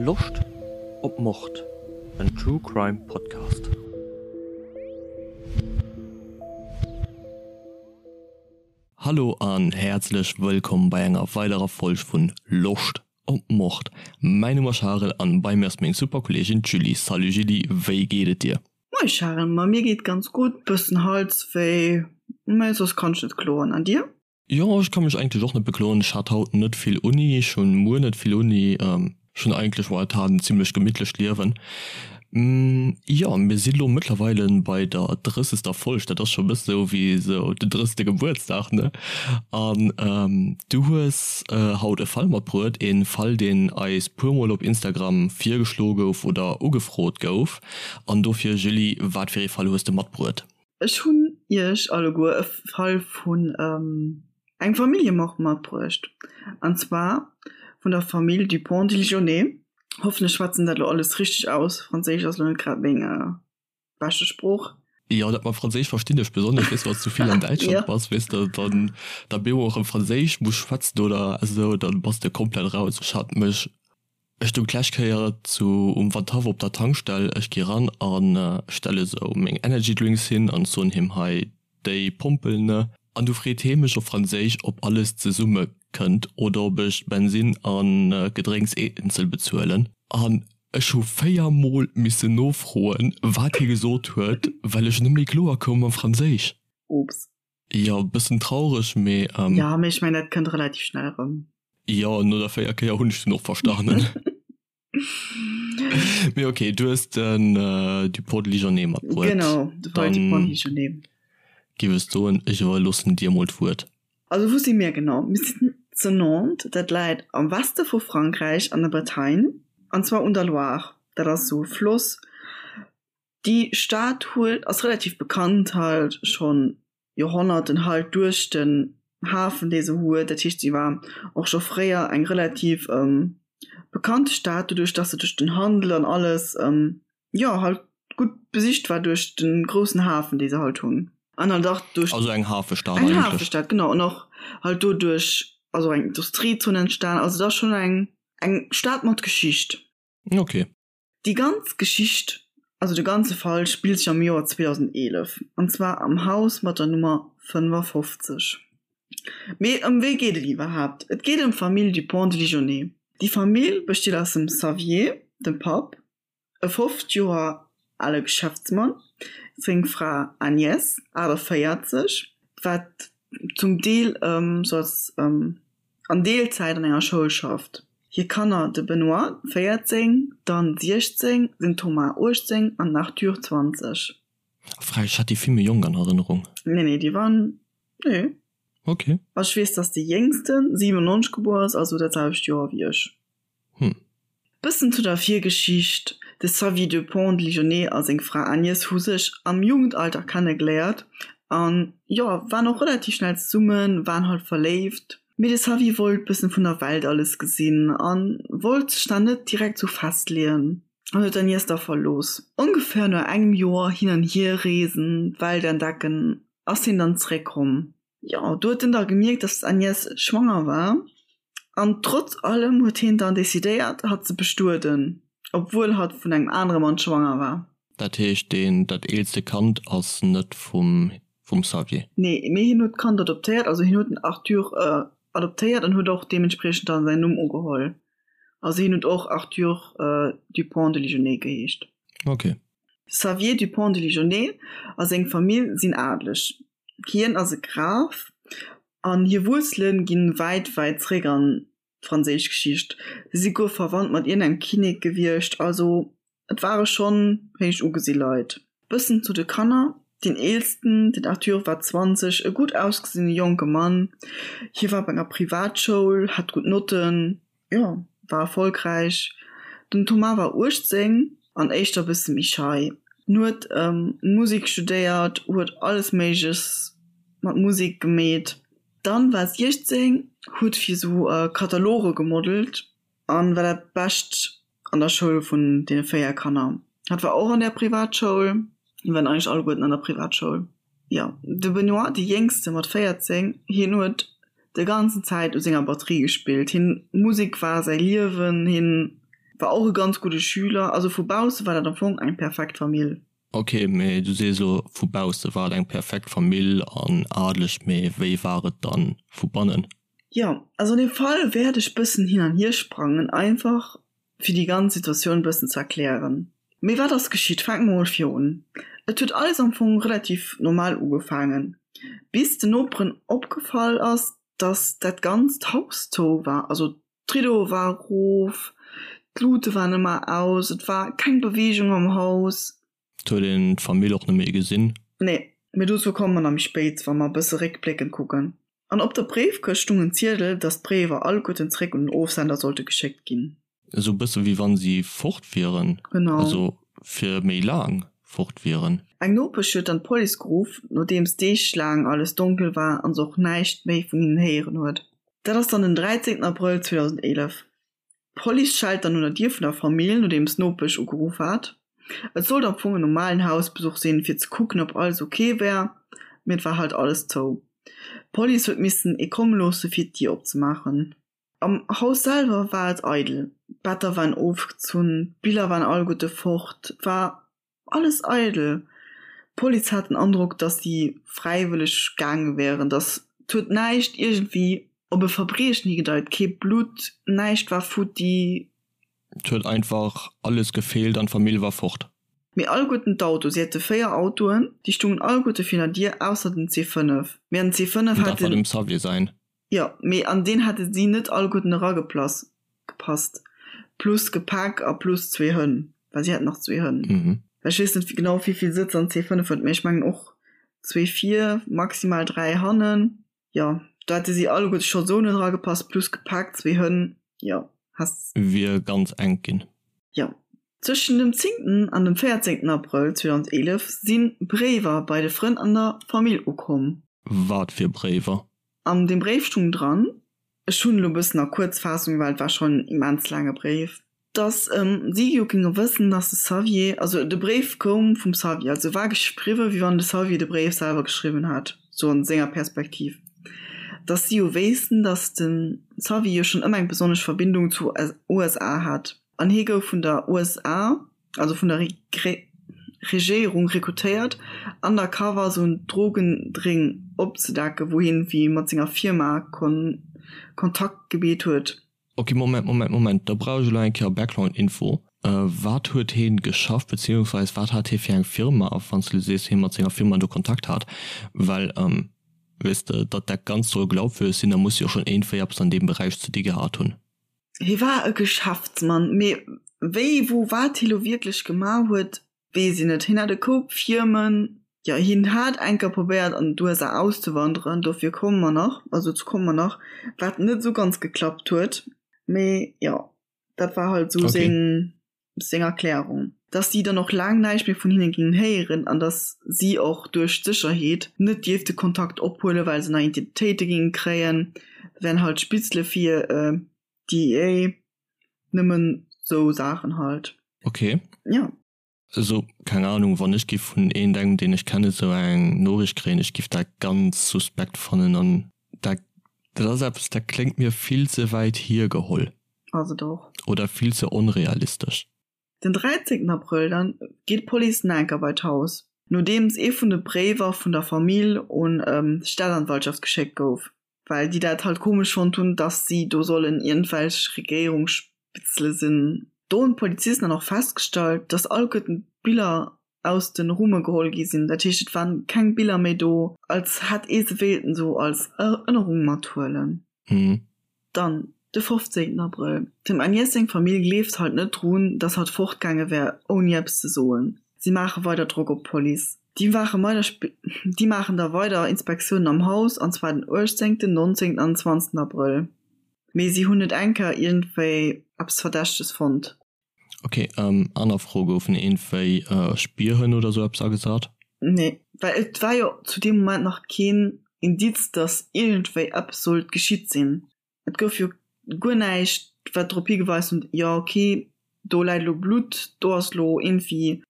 Loscht op Mord? En True Crime Podcast. Hallo an häerzlech wëllkomm bei enger weiderer Folg vun Loscht op Mord. Mäin Numm ass Charel an bei mir ass meng super Kolleegin d'Julie. Salut Julie, wéi geet et dir? Moie Charel, ma mir geet ganz gutt, bëssen Halswéi, mä soss kann ech net kloen. An dir? Jo, ech ka mech eigentlech och net bekloen. Ech hat haut net vill Uni, ech hunn muer net vill Uni. Ech hunn eigentlech momentan en zimlech gemittlecht Liewen. Jo, mir si lo mëttlerweile bei der drëssegster Folg, dat ass scho e bësse sou wéi sou den drëssegste Gebuertsdag, ne? An du hues haut e Fall matbruet, e Fall, deen eis puermol op Instagram virgeschloe gouf oder ugefrot gouf. An dofir, Julie, wat fir ee Fall hues de matbruet? Ech hunn iech alleguer e Fall vun engem Familljemord matbruecht, an zwar vun der Famill Dupont-Ligonnès. Hoffen ech schwätzen dat elo alles richteg aus, Franséisch ass elo net grad meng beschte Sprooch. Jo, dat mam Franséisch verstinn ech, besonnesch weess de, wann s du vill an Däitschland bass, weess de, dann da bemol erëm Franséisch muss schwätzen oder esou, dann bass de komplett raus. Ech hat mech Ech stoung d'lescht Kéier zu um Wandhaff op der Tankstell, ech gi ran a stelle sou meng Energy Drinks hin an soen him hei déi Pompel ne. An du freet hee mech op Franséisch ob alles zesumme kënnt oder ob ech Bensin an Gedrénks eenzel bezuelen. An ech hu 4 mol missen nofroen wat hie gesot huet, well ech net méi kloer koum mam Franséisch. Oops. Jo, bëssen traureg, mee. Jo, mee ech mengen dat kënnt relativ schnell erëm. Jo, no der 4 Kéier hunn ech dunn och verstanen. Mee ok, du hues den Dupont de Ligonnès matbruet. Genau, de Paul Dupont de Ligonnès. Giff ech soen, ech iwwerloossen dir mol d'Wuert. Also wou si mir genau? Mir sinn zu Nantes, dat läit am Weste vu Frankräich an der Bretagne, an zwar un der Loire. Dat ass esou e Floss. Déi Stad huet ass relativ bekannt halt schonn Joerhonnerten halt duerch den Hafen dee se huet. Dat heescht si war och scho fréier eng relativ bekannte Stad doduerch datt se duerch den Handel an alles jo halt gutt besicht war duerch de groussen Hafen dee se halt hunn an halt och duerch Also eng Hafestad eng eigentlech. Hafestad genau an och halt doduerch ass och eng Industriezon entstan. Also et ass schonn eng eng Stad mat Geschicht. Ok. Déi ganz Geschicht, also de ganze Fall spillt sech am Joer 2011, an zwar am Haus mat der Nummer 55. Mee ëm wee geet et iwwerhaapt? Et geet ëm d'Famill Dupont de Ligonnès. Déi Famill besteet aus dem Xavier, dem Papp, e 50 Joer ale Geschäftsmann, seng Fra Agnès, 48, wat zum Deel sou als an Deelzäit an enger Schoul schafft. Hir Kanner, de Benoît, 14, d'Anne, 16, den Thomas, 18 an den Arthur, 20. Frech, ech hat déi vill méi jonk an Erënnerung. Nee, nee, déi waren, nee. Ok. Also ech weess, dass de Jéngsten 97 gebuer ass, also dat selwecht Joer wéi ech. Hm. Bëssen zu der Virgeschicht, De Xavier Dupont de Ligonnès a seng Fra Agnès hu sech am Jugendalter kennegeléiert an jo, waren och relativ schnell zesummen, waren halt verléift. Mee de Xavier wollt bëssen vun der Welt alles gesinn an wollt sech da net direkt sou festleeën an huet d'Agnès da verlooss. Ongeféier no engem Joer hin an hier reesen, d'Welt entdecken, ass hien dann zeréckkomm. Jo, do huet en da gemierkt, dass d'Agnès schwanger war an trotz allem huet hien dann decidéiert, hatt ze bestueden, obwuel hatt vun engem anere Mann schwanger war. Dat heescht, deen, dat eelste Kand ass net vum, vum Xavier? Nee, mee hien huet d'Kand adoptéiert, also hien huet den Arthur adoptéiert an huet och deementspriechend dann säin Numm ugeholl. Also hien huet och Arthur Dupont de Ligonnès geheescht. Ok. Xavier Dupont de Ligonnès a seng Famill sinn adeleg. Hien ass e Graf an hir Wuerzele gi wäit, wäit zréck an d'franséisch Geschicht. Si si guer verwannt mat iergendengem Kinnek gewiescht, also et ware schonn héich ugesi Leit. Bëssen zu de Kanner, Deen eelsten, den Arthur, war 20, e gutt ausgesinne jonke Mann. Hie war op enger Privatschoul, hat gutt Notten. Jo, war erfolgräich. Den Thomas war 18 an éischter bësse méi schei. En huet Musik studéiert, huet alles Méigleches mat Musik gemeet. D'Anne war 16, huet fir sou Kataloge gemodelt an war dat Bescht an der Schoul vun deene 4 Kanner. Hatt war och an där Privatschoul. Mir waren eigentlech alleguerten an der Privatschoul. Jo, de Benoît, dee Jéngste mat 14, hien huet de ganzen Zäit u senger Batterie gespillt. Hien, Musek war säi Liewen. Hien War och e ganz gudde Schüler. Also vu bausse war dat am Fong eng perfekt Famill. Ok, mee du sees elo vu bausse war et eng perfekt Famill an adeleg, mee wéi war et dann vu bannen? Jo, also an deem Fall wäert ech bëssen hin an hier sprangen, einfach fir déi ganz Situatioun bëssen ze erklären. Mee wat ass geschitt? Fänke mer mol vir un. Et huet alles am Fong relativ normal ugefaangen, bis den Noperen opgefall ass, dass dat ganzt Haus zou war. Also d'Riddoe war erof, d'Lute waren ëmmer aus, et war keng Beweegung am Haus. Et huet een d'Famill och net méi gesinn. Nee, mee dozou komme mer nach méi spéit, wa mer e bësse réckbléckend kucken. An op der Bréifkëscht stung en Ziedel, dass d'Bréiwer alleguerten zréck un den Ofsender sollte geschéckt ginn. Esou e bësse wéi wann si fort wieren. Genau. Also fir méi laang fort wieren. Eng Nopesch huet dann d'Police geruff, nodeems Deeg laang alles donkel war an se och näischt méi vun hinnen héieren huet. Dat ass dann den 13 Abrëll 2011. D'Police schellt dann un der Dier vun der Famill, nodeems d'Nopesch ugeruff hat. Et sollt am Fong en normalen Hausbesuch sinn, fir ze kucken, ob alles ok wär, mee et war halt alles zou. D'Police huet missen ee komme loosse fir d'Dier opzemaachen. Am Haus selwer war et eidel, d'Better waren ofgezunn, d'Biller waren alleguerte fort, et war Alles eidel. D'Police hat den Androck, datt si fräiwëlleg gaange wären, datt et huet näischt iergendwéi op e Verbriechen higedeit, kee Blutt, näischt war futti. Et huet einfach alles gefeelt an d'Famill war fort. Mee alleguerten d'Auto, si hate 4 Autoen, déi stungen alleguerte virun der Dier, ausser den C5. Mee an den C5 hat den. Dat war dem Xavier säin. Jo, mee an deen hätte si net alleguerten erageplasst, gepasst. Plus Gepäck a plus zwee Hënn, well si haten nach zwee Hënn. Mhm. Ech weess net genau wéivill Sëtzer en C5 huet, mee ech mengen och zwee vir, maximal 3 hannen. Jo, do hätte si alleguerte scho sou net eragepasst, plus Gepäck, zwee Hënn, jo, häss. Wier ganz enk ginn. Jo. Zwëschen dem zéngten an dem véierzéngten Abrëll 2011 si Bréiwer bei de Frënn an der Famill ukomm. Wat fir Bréiwer? An deem Bréif stung dran, ech hunn elo e bëssen a Kuerzfaassung, well et war schonn en immens laange Bréif, dass si jo géinge wëssen, dass de Xavier, also de Bréif koum vum Xavier, also war geschriwwen, wéi wann de Xavier de Bréif selwer geschriwwen hätt, sou an senger Perspektiv, dass si jo wéissten, dass de Xavier jo schonn ëmmer eng besonnesch Verbindung zu USA hat an hie gouf vun der USA, also vun der Regéierung rekrutéiert undercover sou en Drogendring opzedecken, wou hien wéi mat senger Firma Kontakt gebeet huet. Ok, Moment, Moment, Moment, da brauch ech elo eng Kéier Background Info. Wat huet heen geschafft, beziehungsweise wat hat hee fir eng Firma, wann s de sees hee mat senger Firma do Kontakt hat? Well, weess de, datt dat Ganzt soll glaubwüreg sinn, da muss jo schonn iergendwéi eppes an deem Beräich ze di gehat hunn. Hie war e Geschäftsmann, mee wéi, wou, wat hie lo wierklech gemaach huet, weess een net. Hien hat e Koup Firmen, jo, hien hat eng Kéier probéiert an d'USA auszewanderen, dofir komme mer nach, also dozou komme mer nach, wat net esou ganz geklappt huet. Mee jo, dat war halt esou seng seng Erklärung, dass si dann och laang näischt méi vun hinne géingen héieren an dass si och duerch d'Sécherheet net dierfte Kontakt ophuelen, well se nei Identitéite géinge kréien. Dat wären halt Spitzele fir d'DEA, nëmmen sou Saachen halt. Ok. Jo. Also, keng Ahnung, wann ech giff vun iergendengem, deen ech kennen, sou eng Noriicht kréien, ech giff dat ganz suspekt fannen an dat, dat ass eppes, dat kléngt mir vill ze wäit hiergeholl. Ass et och. Oder vill ze onrealistesch. Den 13 Abrëll dann geet d'Police nach enker bei d'Haus, nodeems ee vun de Bréiwer vun der Famill un d'Staatsanwaltschaft geschéckt gouf, well déi dat halt komesch fonnt hunn, dass si do sollen iergendwelch Regéierungsspitzele sinn. Do hunn d'Polizisten dann och festgestallt, dass alleguerten d'Biller aus de Rumme geholl gi sinn, dat heescht et waren keng Biller méi do, als hätt ee se wéilten esou als Erënnerung mathuelen. Dann de 15 Abrëll, Dem Agnès seng Famill gleeft halt net drun, dass hatt fortgaange wär ouni eppes ze soen. Si maache weider Drock op d'Police. Déi déi maachen da weider Inspektiounen am Haus, an zwar den 18, 19 an 20 Abrëll. Mee si hunn net eng Kéier iergendwéi eppes Verdächteges fonnt. Ok, aner Fro, Goufen iergendwéi Spierhënn oder sou eppes agesat? Nee, well et war jo zu deem Moment nach keen Indiz, dass iergendwéi eppes sollt geschitt sinn. Et gouf jo guer näischt, wat drop higeweist huet, jo ok, do läit elo Blutt, do ass elo iergendwéi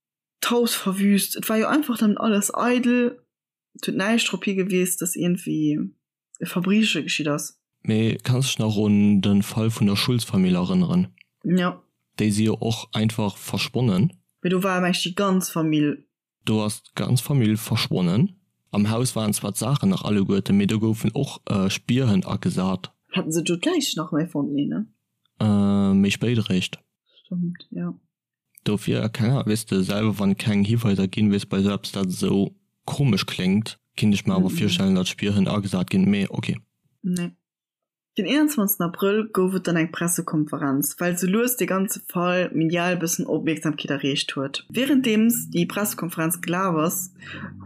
d'Haus verwüst. Et war jo einfach dann alles eidel, et huet näischt drop higewies, dass iergendwéi e Verbrieche geschitt ass. Mee kanns dech nach un de Fall vun der Schulz-Famill erënneren? Jo. Déi si jo och einfach verschwonnen. Mee do war mengt déi ganz Famill. Do ass d'ganz Famill verschwonnen. Am Haus waren zwar d'Saachen nach alleguerten, mee do goufen och Spierhënn agesat. Haten se do d'Läich nach méi fonnt? Nee, ne? Méi spéit eréischt. Stëmmt, jo. Dofir, keng Ahnung, weess de selwer, wann keng Hiweiser ginn, weess bei esou eppes dat esou komesch kléngt, kinnt ech mer awer virstellen, datt Spierhënn agesat ginn, mee ok. Nee. Den 21 Abrëll gouf et dann eng Pressekonferenz, well sou lues dee ganze Fall medial bëssen Opmierksamkeet erreecht huet. Wärenddeems déi Pressekonferenz gelaf ass,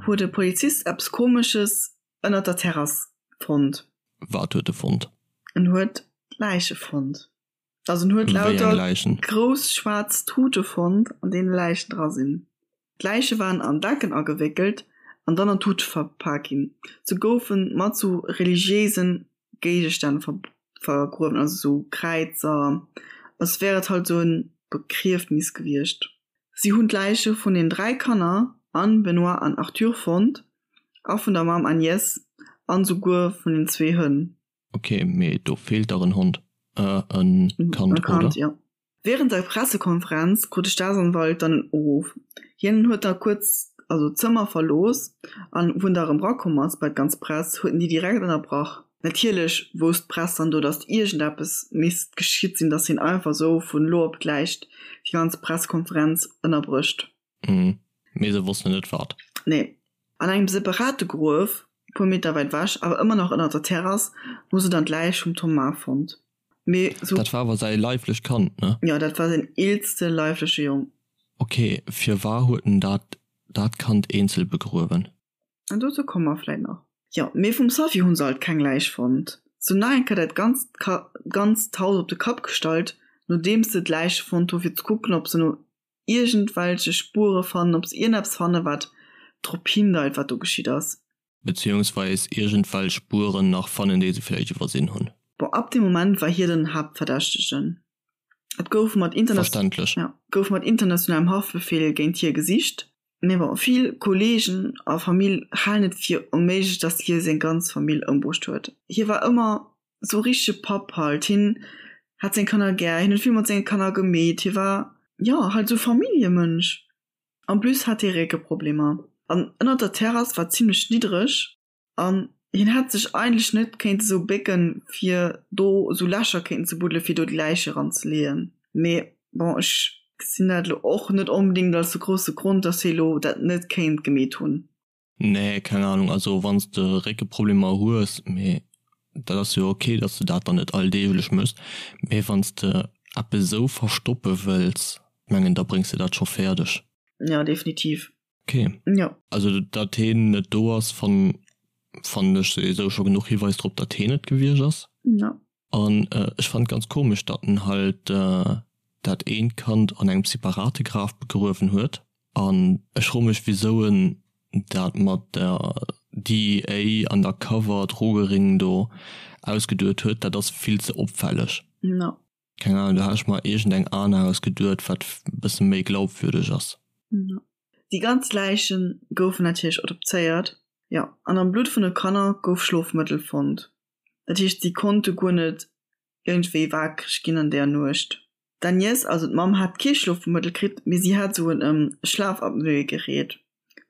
huet e Polizist eppes Komesches ënnert der Terrass fonnt. Wat huet e fonnt? En huet Läiche fonnt. Also en huet lauter grouss schwaarz Tute fonnt, an deene Läichen dra sinn. D'Läiche waren an Decken agewéckelt an dann an Tute verpak ginn. Se goufe mat sou religiéise Géigestänn vergruewen, also sou Kräizer, als wär et halt sou e Begriefnis gewiescht. Si hunn d'Läiche vun den 3 Kanner Anne, Benoît an Arthur fonnt a vun der Mamm Agnès an souguer vun den zwee Hënn. Ok, mee do feelt dach en Hond, äh en Kand, oder? Kand, jo. Während der Pressekonferenz krut de Staatsanwalt dann en Uruff. Hien huet da kuerz also d'Zëmmer verlooss an wou en da erëm rakomm ass bei d'ganz Press, huet en déi direkt ënnerbrach. Natierlech wousst d'Press dann do, datt iergendeppes misst geschitt sinn, datt hien einfach esou vun elo op gläich déi ganz Pressekonferenz ënnerbrécht. Mhm. Mee se wossten net wat. Nee. An engem separate Gruef, e puer Meter wäit ewech, awer ëmmer nach ënner der Terrass, hu se dann d'Läich vum Thomas fonnt. Mee sou. Dat war awer säi leiflecht Kand, ne? Jo, dat war säin eelste leifleche Jong. Ok, firwar huet en dat dat Kand eenzel begruewen? An dozou komme mer vläit nach. Jo, mee vum Sophie hu se alt keng Läich fonnt. Se hunn nach eng Kéier dat ganzt ganzt Haus op de Kapp gestallt, nodeems se d'Läiche fonnt hu fir ze kucken, ob se no iergendwelche Spuere fannen, ob se iergendeppes fannen, wat drop hindeit, wat do geschitt ass. Beziehungsweis iergendwelch Spueren nach fannen, déi se vläicht iwwersinn hunn. Bon, ab deem Moment war hie den Haaptverdächtegen. Et gouf mat Verständlech. Ja, gouf mat internationalem Haftbefehl géint hie gesicht. Mee bon, vill Kolleegen a Famill halen et fir onméiglech, datt hie seng ganz Famill ëmbruecht huet. Hie war ëmmer sou richtege Papp halt, hien hat seng Kanner gär, hien huet vill mat senge Kanner gemeet, hie war jo halt sou Familljemënsch. En plus hat hie Réckeproblemer an ënnert der Terrass war zimlech niddreg an hien hätt sech eigentlech net kéinte sou bécken fir do sou Lächer kéinten ze buddele fir do déi Läiche ran ze leeën. Mee bon ech gesinn dat elo och net onbedéngt als de grousse Grond, dass hie lo dat net kéint gemeet hunn. Nee, keng Ahnung, also wanns de Réckeproblemer hues, mee dat ass jo ok, dass de dat dann net alldeeglech mëss, mee wanns de eppes esou verstoppe wëlls, mengen da bréngs de dat scho fäerdeg. Jo, definitiv. Ok. Jo. Also datt heen net do ass, fannen ech souwisou scho genuch Hiweis drop, datt heen et gewiescht ass. Jo. An ech fannen et ganz komesch, datt en halt dat eent Kand an engem separate Graf begruewen huet. An ech froe mech wisou en dat mat der DEA Undercover Drogering do ausgeduet huet, dat ass vill ze opfälleg. No. Keng Ahnung, do hat ech mer iergend eng aner ausgeduet wat bësse méi glaubwürdeg ass. No. Déi ganz Läiche goufen natierlech autopséiert, jo, an am Blutt vun de Kanner gouf Schlofmëttel fonnt. Dat heescht si konnte guer net iergendwéi waakreg ginn an där Nuecht. D'Agnès, also d'Mamm, hat kee Schlofmëttel kritt, mee si hat esou en Schlafapnoegerät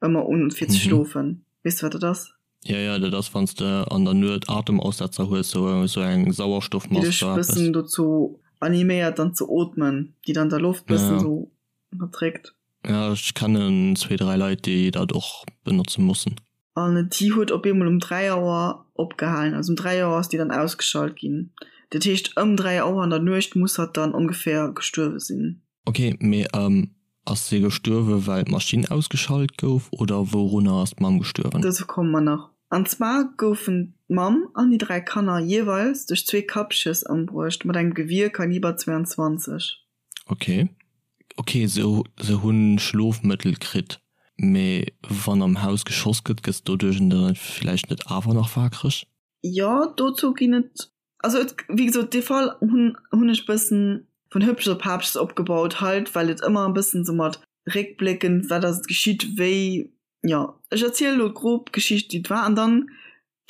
ëmmer un fir ze schlofen. Weess de wat dat ass? Jo, jo, dat ass wann s de an der Nuet Atemaussetzer hues, sou sou eng Sauerstoffmask oder eppes. Déi dech bëssen dozou animéiert dann ze ootmen, déi dann der Loft bëssen sou ënnerdréckt. Jo, ech kennen zwee, dräi Leit déi dat och benotze mussen. An déi huet op eemol um 3 Auer opgehalen. Also um 3 Auer ass déi dann ausgeschalt ginn. Dat heescht ëm 3 Auer an der Nuecht muss hatt dann ongeféier gestuerwe sinn. Ok, mee ass se gestuerwe well d'Maschinn ausgeschalt gouf oder wourunner ass d'Mamm gestuerwen? Dozou komme mer nach. An zwar goufen d'Mamm an déi 3 Kanner jeeweils duerch zwee Kappschëss ëmbruecht mat engem Gewier Kaliber 22. Ok. Ok, se se hunn Schlofmëttel kritt, mee wann am Haus geschoss gëtt, gëss doduerch dann villäicht net awer nach waakreg? Jo, dozou ginn et, also et, wéi gesot, dee Fall hunn hunn ech bëssen vun Hëppches op Haapches opgebaut halt, well et ëmmer e bëssen sou mat réckbléckend, wat ass et geschitt, wéi, jo, ech erziele lo grob d'Geschicht wéi et war an dann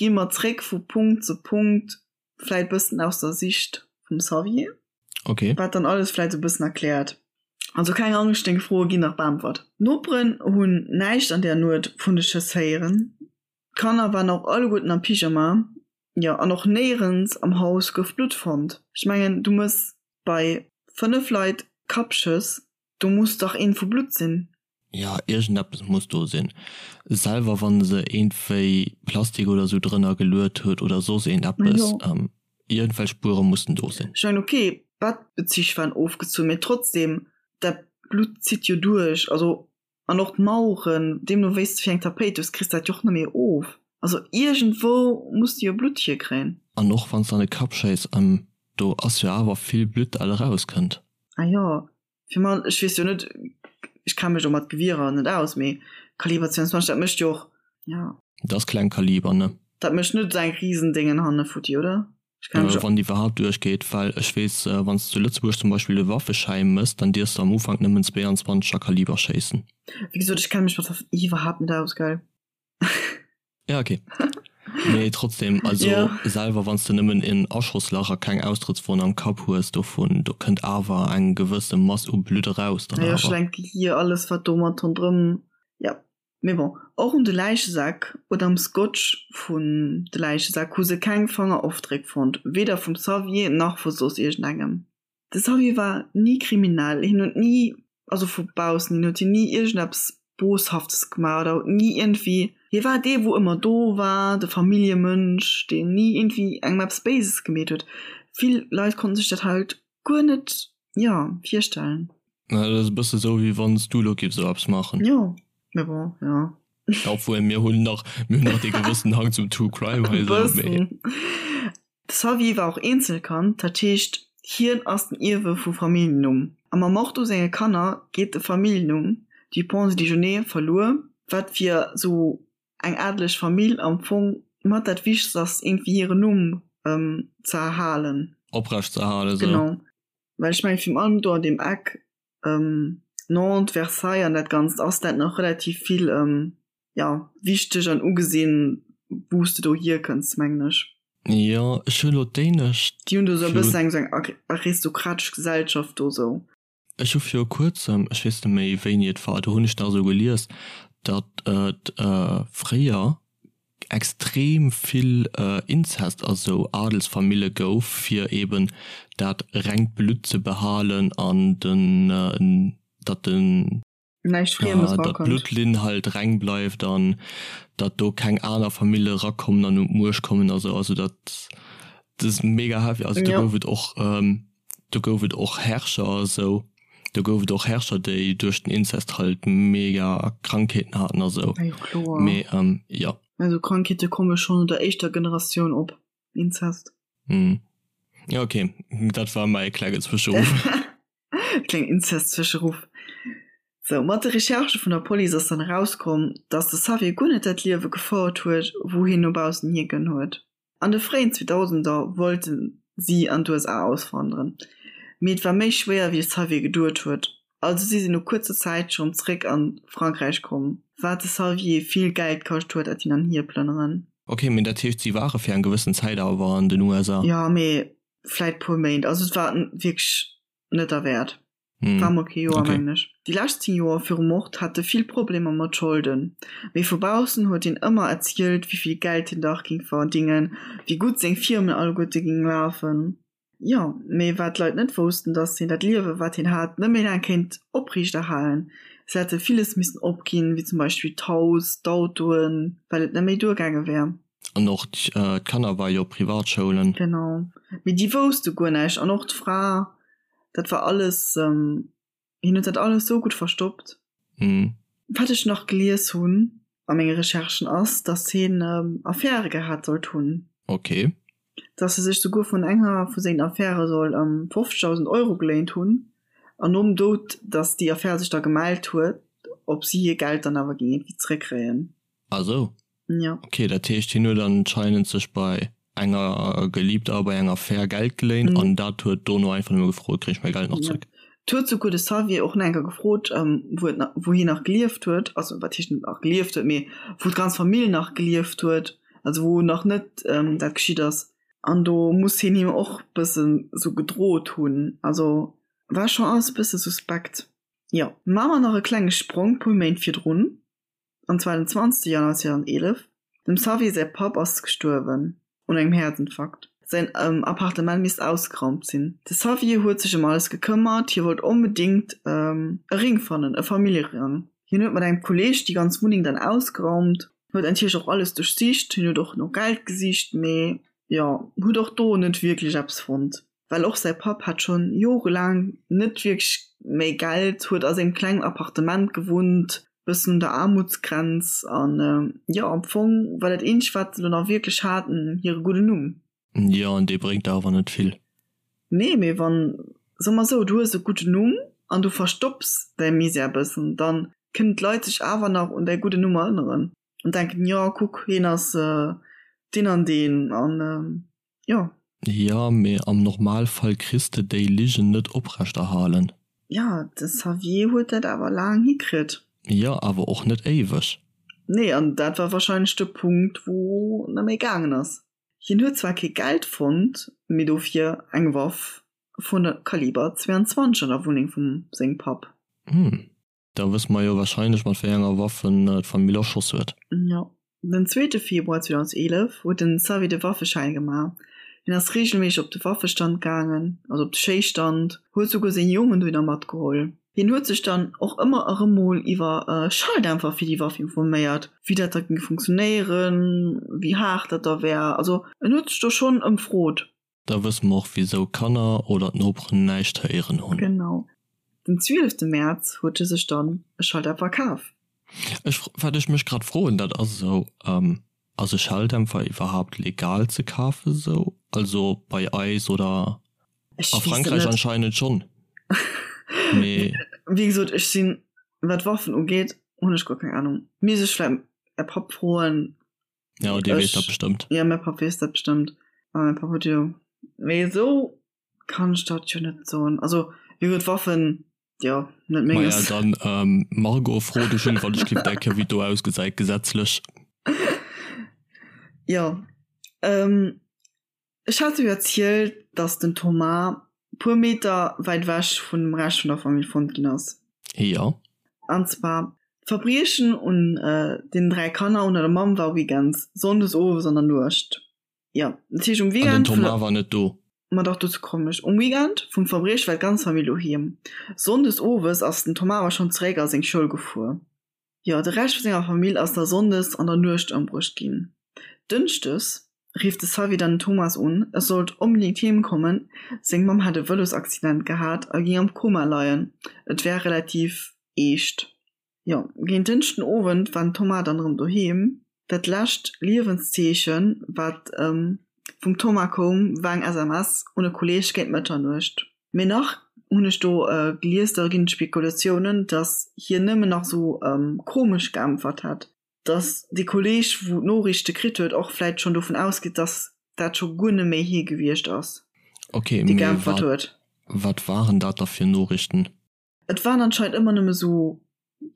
gi mer zréck vu Punkt zu Punkt, vläit bëssen aus der Sicht vum Xavier. Okay. Wat dann alles vläit esou e bëssen erkläert. Also keng Angscht, deng Froe ginn nach beäntwert. D'Noperen hunn näischt an där Nuet vun de Schëss héieren. D'Kanner waren och alleguerten am Pyjama. Jo, an och néierens am Haus gouf Blutt fonnt. Ech mengen, du mëss bei 5 Leit Kappschëss, do muss dach eent vu Blutt sinn. Jo, iergendeppes muss do sinn. Selwer wann se iergendwéi Plastik oder sou drënner geluet huet oder soss iergendeppes, iergendwelch Spuere mussen do sinn. Ech mengen, ok, d'Bettbezich waren ofgezunn, mee trotzdem, dat Blutt zitt jo duerch, also an och d'Maueren, deemno wéi s de fir eng Tapéit hues, kriss de dat jo och net méi of. Also iergendwou muss de jo Blutt hierkréien. An och wann s de an de Kapp schéiss, do ass jo awer vill Blutt dat erauskënnt. Ah jo, Fir man, ech weess jo net, ech kenne mech do mat Gewierer net aus, mee Kaliber 22, dat mécht jo och, ja. Dat ass kleng Kaliber, ne? Dat mécht net esou eng Risendéngen hanne futti, oder? Ech kenne mech. Wann déi iwwerhaapt duerchgeet, well ech weess, wann s de zu Lëtzebuerg zum Beispill e Waffeschäi mëss, dann dierfs de am Ufank nëmmen 22er Kaliber schéissen. Wéi gesot, ech kenne mech mat Waffen iwwerhaapt net aus, gell? Ja, okay. Mee trotzdem, also ja. selwer wann s de nëmmen en Aschosslach a keng Austrëttswonn am Kapp hues dovun, do kënnt awer eng gewësse Mass u Blutt eraus dann awer. Ja, schlenkt Gehier, alles wat do mat ronderëm, ja. Mee bon, och un de Läichesäck oder am Scotch vun de Läichesäck hu se keng Fangerofdréck fonnt, weder vum Xavier nach vu soss iergendengem. De Xavier war ni kriminell, hien huet ni, also vu baussen hin huet hien ni iergendeppes Boshaftes gemaach oder huet ni iergendwéi, hie war dee wou ëmmer do war, de Familljemënsch, deen ni iergendwéi engem eppes Béises gemeet huet. Vill Leit konnten sech dat halt guer net, jo, virstellen. Dat ass e bësse sou wéi wann s du elo giffs esou eppes maachen. Jo, mee bon, jo. Obwuel mir hunn nach, mir hunn nach dee gewëssen Hang zum True Crime hei esou, mee. De Xavier war och Eenzelkand, dat heescht hien ass den Ierwe vum Familljennumm. A mam Mord u senge Kanner geet de Familljennumm Dupont-de Ligonnès verluer, wat fir sou eng adeleg Famill am Fong mat dat Wichtegst ass, iergendwéi hiren Numm ze erhalen. Oprecht ze erhalen, sou. Genau. Well ech mengen, virun allem do an deem Eck Nantes, Versailles an dat Ganzt ass dat nach relativ vill, jo, wichteg an ugesinn, wou s de do hierkënns, mengen ech. Jo, ech hu lo d'éinescht. Déi hunn do esou e bëssen eng esou eng aristokratesch Gesellschaft do esou. Ech hu viru kuerzem, ech weess net méi wéini et war, do hunn ech nach esou gelies, datt et fréier extrem vill Inzest a sou Adelsfamille gouf, fir eben dat rengt Blutt ze behalen an den, datt den. Näischt Friemes datt erakënnt. d'Bluttlinn halt reng bleift an datt do keng aner Famille erakommen an un d'Muecht kommen a sou. Also dat ass mega heavy. Also do gouf et och, do gouf et och Herrscher a sou, do gouf et och Herrscher, déi duerch den Inzest halt mega Krankheeten haten a sou. Jo kloer. Mee jo. Also Krankheete komme schonn no der éischter Generatioun op, Inzest. Jo ok, dat war mäi klenge Zwëscheruff. Kleng Inzest-Zwëscheruff. Sou, mat de Recherchë vun der Police ass dann erauskomm, dass de Xavier guer net dat Liewe gefouert huet, wou hien no baussen hir gënn huet. An de fréien Zweedausender wollte si an d'USA auswanderen, mee et war méi schwéier wéi de Xavier geduet huet. Also si sinn no kuerzer Zäit schonn zréck a Frankräich komm, wat de Xavier vill Geld kascht huet, dat hin an hier plënneren. Ok, mee dat heescht si ware fir eng gewëssen Zäit awer an den USA? Jo, mee vläit puer Méint. Also et war wierklech net derwäert. Mm. War mol kee Joer, okay. mengen ech. Déi lescht 10 Joer virum Mord hat e vill Problemer mat Scholden. Mee vu baussen huet hien ëmmer erzielt, wéi vill Geld hien dach géing verdingen, wéi gutt seng Firmen alleguerte géing lafen. Jo, mee wat d'Leit net woussten, dass hien dat Liewe wat hien hat net méi laang kéint opriichterhalen. Si hätte villes missen opginn, wéi zum Beispill d'Haus, d'Autoen, well et net méi duergaange wär. An och d'Kanner ware jo op Privatschoulen. Genau. Mee déi wousste guer näischt. An och d'Fra, dat war alles, hien huet dat alles sou gutt verstoppt. Wat ech nach gelies hunn a menge Recherchen ass, datt hien Affäre gehat sollt hunn. Ok. Datt e sech souguer vun enger vu sengen Affäre soll 50.000 Euro geléint hunn. An nom Doud, datt déi Affär sech da gemellt huet, ob si hir Geld dann awer géing iergendwéi zeréckkréien. Ah sou. Ja. Ok, dat heescht hien huet anscheinend sech bei enger Geliebter a bei enger Affär Geld geléint mhm. an dat huet dono einfach nëmme gefrot, kréich mäi Geld nach ja. zréck. Et huet souguer de Xavier och nach eng Kéier gefrot, wou et wou hien nach gelieft huet, also wat heescht nach gelieft huet, mee wou d'ganz Famill nach gelieft huet, also wou nach net dat geschitt ass. An do muss hien him och bëssen sou gedrot hunn. Also war schonn alles e bësse suspekt. Jo, maache mer nach e klenge Sprong puer Méint virdrun, an zwar den 20 Januar 2011. Dem Xavier säi Papp ass gestuerwen un engem Häerzinfarkt. Säin Appartement misst ausgeraumt sinn. De Xavier huet sech ëm alles gekëmmert, hie wollt onbedéngt e Ring fannen, e Familljerang. Hien huet mat engem Kolleeg déi ganz Wunneng dann ausgeraumt, huet natierlech och alles duerchsicht, hien huet och no Geld gesicht, mee jo, huet och do net wierklech eppes fonnt. Well och säi Papp hat schonn jorelaang net wierklech méi Geld, huet a sengem klengen Appartement gewunnt, bëssen un der Aarmutsgrenz an jo, am Fong war dat eenzegt wat se do nach wierklech haten, hire gudden Numm. Jo, an dee bréngt der awer net vill. Nee, mee wann, soe mer esou, du hues e gudden Numm an du verstopps däi Misär bëssen, dann kënnen d'Leit sech awer nach un däi gudden Numm erënneren an denken, jo kuck, hien ass deen an deen an jo. Jo, mee am Normalfall kriss de déi Ligen net oprechterhalen. Jo, de Xavier huet dat awer laang hikritt. Jo, awer och net éiweg. Nee, an dat war wahrscheinlech de Punkt, wou net méi gaangen ass. Hien huet zwar kee Geld fonnt, mee dofir eng Waff vun Kaliber 22 an der Wunneng vum sengem Papp. Hm. Da wësse mer jo wahrscheinlech mat wéi enger Waff en d'Famill erschoss huet. Jo. Den zweete Februar 2011 huet den Xavier de Waffeschäin gemaach. Hien ass reegelméisseg op de Waffestand gaangen, also op de Schéisstand, huet souguer seng Jongen dohinner matgeholl. Hien huet sech dann och ëmmer erëm mol iwwer Schalldämpfer fir déi Waff informéiert, wéi dat da géing funktionéieren, wéi haart dat da wär. Also en huet sech do schonn ëmfrot. Da wësse mer och wisou Kanner oder d'Noperen näischt héieren hunn. Genau. Den 12 Mäerz huet e sech dann e Schalldämpfer kaf. Ech, wat ech mech grad froen, dat ass esou, ass e Schalldämpfer iwwerhaapt legal ze kafen esou? Also bei eis oder Ech a weess et Frankräich net. anscheinend schonn, mee. Wéi gesot, ech sinn, wat Waffen ugeet, hunn ech guer keng Ahnung. Misst ech vläit mäi Papp froen. Ja, dee weess dat bestëmmt. Ja, mäi Papp weess dat bestëmmt. A mäi Papp huet jo. Mee esou kann ech dat jo net soen. Also, wéi gesot, Waffen, jo, net menges. Maja, dann, ähm, Margot, fro de Jules, wann ech giff denken, wéi et do ausgesäit gesetzlech. Jo, ähm, Ech hat jo erzielt, dass den Thomas puer Meter wäit ewech vun dem Rescht vun der Famill fonnt ginn ass. Jo. An zwar d'Verbriechen un den 3 Kanner un der Mamm war weekends, sonndes owes an der Nuecht. Jo, dat heescht um An den Weekend vun der. Thomas war net do? Ma dach, dozou kommen ech. Um Weekend vum Verbrieche war d'ganz Famill doheem. Sonndes owes ass den Thomas awer schonn zeréck a seng Schoul gefuer. Jo, de Rescht vu senger Famill ass da sonndes an der Nuecht ëmbruecht ginn. Dënschdes rifft de Xavier dann den Thomas un, e sollt onbedéngt heem kommen, seng Mamm hätt e Vëlosaccident gehat a géing am Koma leien, et wär relativ eescht. Jo, géint Dënschden Owend war den Thomas dann erëm doheem. Dat lescht Liewenszeechen, wat vum Thomas koum, war eng SMS un e Kolleeg géint Mëtternuecht. Mee nach hunn ech do gelies, da ginn et Spekulatiounen, datt hien nëmmen nach esou komesch geäntwert hätt, datt dee Kolleeg, wou d'Noriichte kritt huet, och vläicht schonn dovun ausgeet, datt dat scho guer net méi hie gewiescht ass, Okay, dee mee geäntwert wat, huet. wat waren dat da fir Noriichten? Et waren anscheinend ëmmer nëmme sou,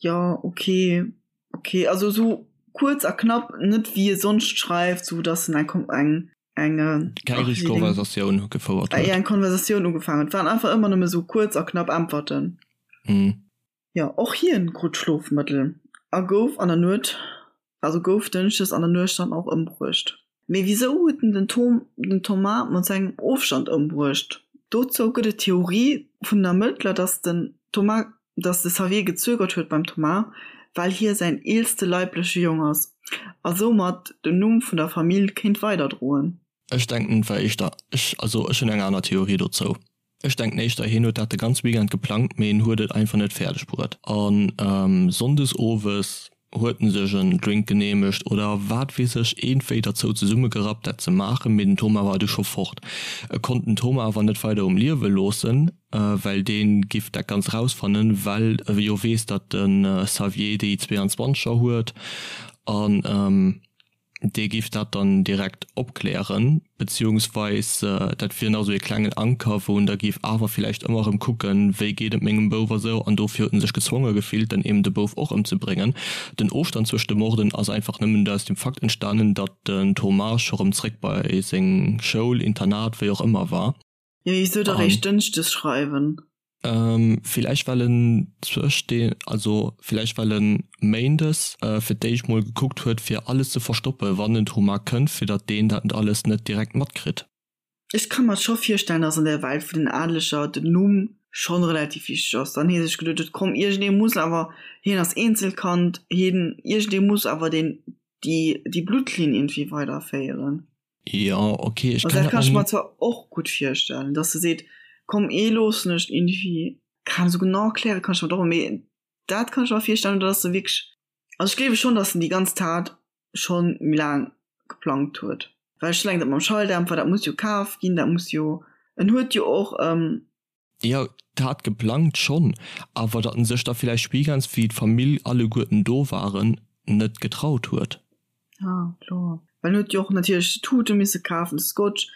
jo, ok, ok, also sou kuerz a knapp, net wéi e sonst schreift, sou datt en eng eng eng Keng ach richteg wéi deng Konversatioun gefouert ah huet. jo, eng Konversatioun ugefaangen huet. Et waren einfach ëmmer nëmme sou kuerz a knapp Äntwerten. Hm. Jo, och hien krut Schlofmëttel a gouf an der Nuet, also gouf dënschdes an der Nuecht dann och ëmbruecht. Mee wisou huet en den Tom, den Thomas mat sengem Ofstand ëmbruecht? Dozou gëtt et d'Theorie vun den Ermëttler, dass den Thomas, dass de Xavier gezögert huet beim Thomas, well hie säin eelste leibleche Jong ass a soumat den Numm vun der Famill kéint weiderdroen. Ech denken et war éischter, ech, also ech hunn eng aner Theorie dozou. Ech denken éischter hien huet dat de ganz Weekend geplangt, mee en huet et einfach net fäerdeg bruet. An Sonndes owes huet en sech en Drink geneemegt oder wat weess ech, eenwéi derzou zesummegerappt dat ze maachen, mee den Thomas war du scho fort. E konnt den Thomas awer net weider um Liewe loossen, well dee giff dat Ganzt rausfannen, well e jo weess, datt de Xavier déi 22er huet an. Dee géif dat dann direkt opklären, beziehungsweis dat wier nach esou ee klengen Anker, wou en da géif awer villäicht ëmmer erëm kucken, wéi geet et mengem Bouf a sou. An dofir huet en sech gezwonge gefillt, dann eben de Bouf och ëmzebréngen. Den Ofstand zwëscht de Morden ass einfach nëmmen aus dem Fakt entstanen, datt den Thomas scho rëm zréck bei seng Schoul, Internat, wéi och ëmmer war. Jo, wisou da réischt dënschdes schreiwen? Villäicht well en zwëscht de, also villäicht well en méindes fir d'éischt mol gekuckt huet fir alles ze verstoppen, wann den Thomas kënnt, fir datt deen dat alles net direkt matkritt. Ech ka mer scho virstellen, datt an der Welt vun den Adeleger den Numm schonn relativ wichteg ass. Dann hie sech geduet huet, komm iergendee muss awer, hien ass Eenzelkand, hien, iergendee muss awer deen, déi, déi Bluttlinn iergendwéi weiderféieren. Jo, ok, ech kann dat kann ech mer zwar och gutt virstellen, dass se seet, komm ee loossen ech iergendwéi, keng Ahnung, esou genau erkläre kann ech mer dat och net, mee dat kann ech mer virstellen, oder dass se wierklech, also ech gleewe schonn, dass en déi ganz Tat schonn méi laang geplangt huet, well ech eleng dat mam Schalldämpfer, dat muss jo kaf ginn, dat muss jo, en huet jo och. Jo, d'Tat geplangt schonn, awer datt en sech da villäicht weekends, wéi d'Famill alleguerten do waren, net getraut huet. Ah, kloer. Well en huet jo och natierlech d'Tute misse kafen, de Scotch,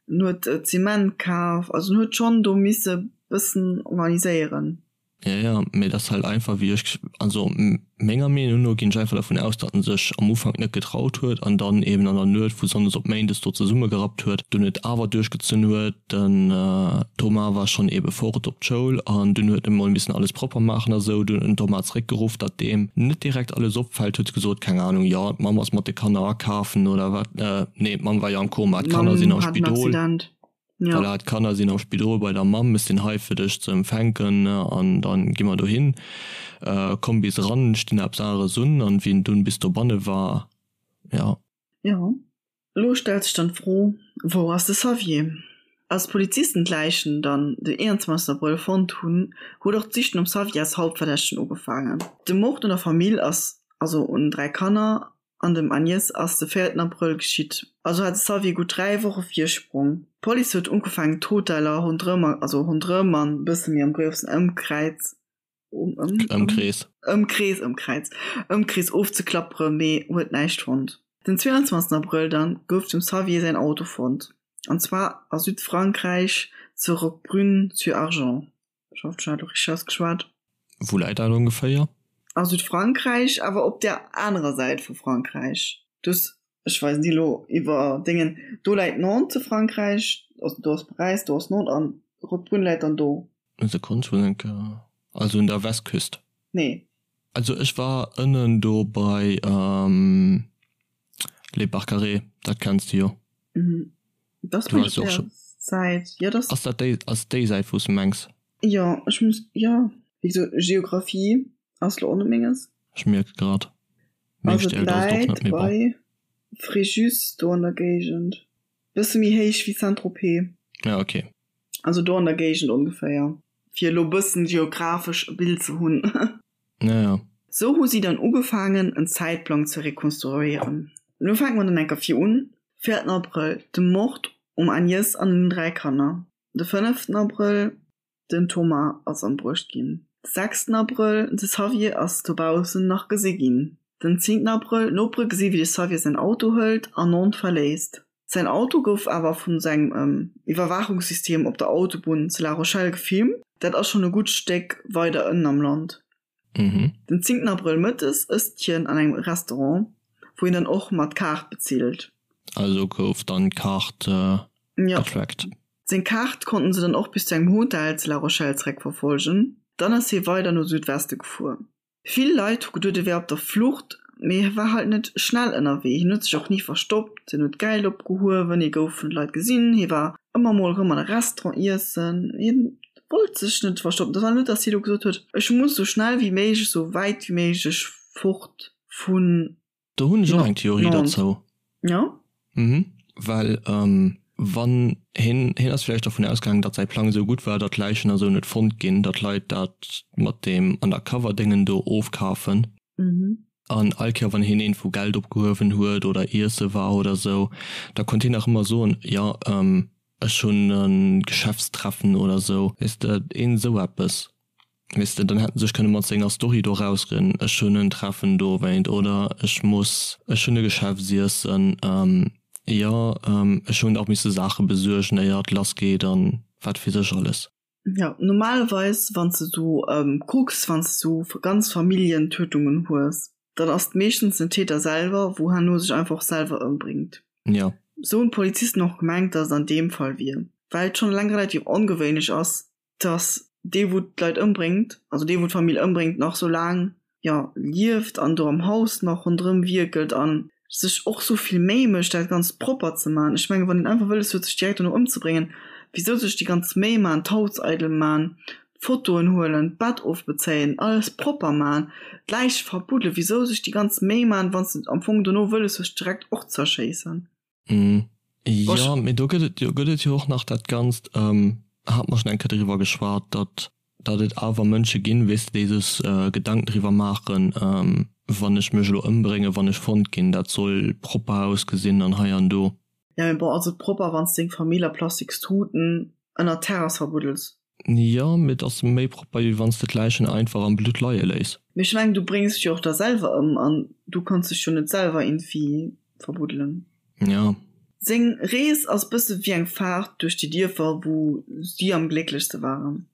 en huet Zement kaf, also en huet schonn do misse bëssen organiséieren. Jo, jo, mee et ass halt einfach, wéi ech, also menger Meenung no ginn ech einfach dervun aus, datt en sech am Ufank net getraut huet an dann eben an der Nuet vu Sonndes op Méindes do zesummegerappt huet, dunn et awer duerchgezunn huet. Den Thomas war schonn ebe fort op d'Schoul an dunn huet e mol missen alles propper maachen a sou. Dunn huet den Thomas zeréckgeruff, datt deem net direkt alles opfält, huet gesot, keng Ahnung, jo d'Mamm ass mat de Kanner akafen oder wat, nee d'Mamm war jo am Koma, d'Kanner sinn am Spidol. Voilà, d'Kanner sinn am Spidol bei der Mamm, ech sinn hei fir dech ze empfänken an dann gi mer dohin. Komm bis eran, ech dinn eppes aneres un. An wéi en dunn bis dobanne war, jo. Jo, elo stellt sech dann d'Fro, Wou ass de Xavier? Als d'Polizisten d'Läichen dann den 21 Abrëll fonnt hunn, huet och d'Sich nom Xavier als Hauptverdächtegen ugefaangen. De Mord un der Famill ass, also un den 3 Kanner, An dem Agnès ass de véierten Abrëll geschitt. Also hat de Xavier gutt 3 Woche Virsprong. D'Police huet ugefaangen d'Hoteller ronderëm, also ronderëm an e bësse méi am groussen Ëmkräiz, Ëmkrees. Ëmkrees, Ëmkräiz, Ëmkrees ofzeklapperen, mee huet näischt fonnt. Den 22 Abrëll dann gouf dem Xavier säin Auto fonnt, an zwar a Südfrankräich zu Roquebrune-sur-Argent. Ech hoffen, ech hunn dat elo richteg ausgeschwat. Wou läit dat ongeféier? A Südfrankräich, awer op där anerer Säit vu Frankräich. Du hues, ech weisen dir elo iwwer Déngen, do läit Nantes zu Frankräich, also do ass Paräis, do ass Nantes an Roquebrune läit dann do. Sekonn, ech muss eng Kéier, also un der Westküst? Nee. Also ech war ënnen do bei Les Barcarets, dat kenns de jo. Mhm. Das Du warst jo och scho. Säit. Ja, das. Ass dat déi, ass déi Säit wou s de mengs? Jo, ech muss, jo. Wéi gesot, Geographie ass lo och net menges. Ech mierke grad, meng Also et Stäerkt ass et och läit net, mee bon. bei Fréjus, do an der Géigend. Bësse méi héich wéi Saint-Tropez. Ja, okay. Also do an der Géigend ongeféier. Fir elo bëssen geographesch e Bild ze hunn. Ja, ja. Sou hu si dann ugefaangen en Zäitplang ze rekonstruéieren. Lo fänke mer dann enker vir un, Véierten Abrëll, de Mord um Agnès an den 3 Kanner. De fënneften Abrëll, den Thomas ass ëmbruecht ginn. De sechsten Abrëll, de Xavier ass dobaussen nach gesi ginn. Den zéngten Abrëll, d'Nopere gesi wéi de Xavier säin Auto hëlt an Nantes verléisst. Säin Auto gouf awer vun sengem Iwwerwaachungssystem op der Autobunn zu La Rochelle gefilmt. Dat ass schonn e gutt Stéck weider ënnen am Land. Den zéngten Abrëll mëttes ësst hien an engem Restaurant, wou hien dann och mat Kaart bezilt. Also gouf dann d'Kaart getrackt. Seng Kaart konnten se dann och bis zu engem Hotel zu La Rochelle zeréckverfolgen. Dann ass hie weider no Südweste gefuer. Vill Leit hu geduet e wär op der Flucht, mee hie war halt net schnell ënnerwee. Hien huet sech och ni verstoppt, hien huet Geld opgehuewen, hie gouf vun de Leit gesinn, hie war ëmmer mol erëm an e Restaurant iessen, hien wollt sech net verstoppen. Dat war net, datt hie lo gesot huet, ech muss esou schnell wéi méiglech, esou wäit wéi méiglech fort vun. Do hunn ech och eng Theorie derzou. Jo. Mhm. Well wann hien, hien ass vläicht dervun ausgaangen, datt säi Plang esou gutt war, datt d'Läichen a sou net fonnt ginn, datt d'Leit dat mat deem Undercover-Déngen do ofkafen. Mhm. An all Kéier wann hien iergendwou Geld opgehuewen huet oder iesse war oder sou, da konnt hien nach ëmmer soen, jo, ech hunn e Geschäftstreffen oder sou. Weess de, een esou eppes. Weess de, dann hätt en sech kënne mat senger Story do rausreden, ech hunn en Treffen dowéint oder ech muss, ech hunn e Geschäftsiessen, jo, ech hunn och misse Saache besuergen, éier et lass geet an wat weess ech alles. Jo, normalerweis wann s de sou kucks, wann s de sou ganz Familljentötungen hues, dann ass et meeschtens den Täter selwer, wou herno sech einfach och selwer ëmbréngt. Jo. Sou hunn d'Polizisten och gemengt, datt et an deem Fall wier, well et schonn eleng relativ ongewéinlech ass, dass dee wou d'Leit ëmbréngt, also dee wou d'Famill ëmbréngt, nach sou laang, jo, lieft an do am Haus nach ronderëm wierkelt an sech och sou vill Méi mécht dat Ganzt propper ze man. Ech mengen, wann een einfach wëlles huet sech direkt dono ëmzebréngen, wisou sech déi ganz Méi man, d'Haus eidel man, d'Fotoen huelen, d'Bett ofbezéien, alles propper man, d'Läich verbuddelen, wisou sech déi ganz Méi man, wann s de am Fong dono wëlles hues direkt och z'erschéissen? Jo, mee do gëtt et jo, gëtt et jo och nach dat Ganzt, hate mer schonn eng Kéier driwwer geschwat, datt, datt et awer Mënsche ginn, weess de, déi sech Gedanken driwwer maachen, wann ech mech elo ëmbréngen, wann ech fonnt ginn, dat soll propper ausgesinn an hei an do. Jo, mee bon, ass et propper, wann s deng Famill a plastiks Tuten ënnert d'Terrass verbuddels? Jo, mee et ass méi propper wéi wanns de d'Läichen einfach am Blutt leie léiss. Mee ech mengen du bréngs dech jo och da selwer ëm an du kanns dech jo net selwer iergendwéi verbuddelen. Jo. Seng Rees ass bësse wéi eng Faart duerch déi Dierfer wou si am glécklechste waren.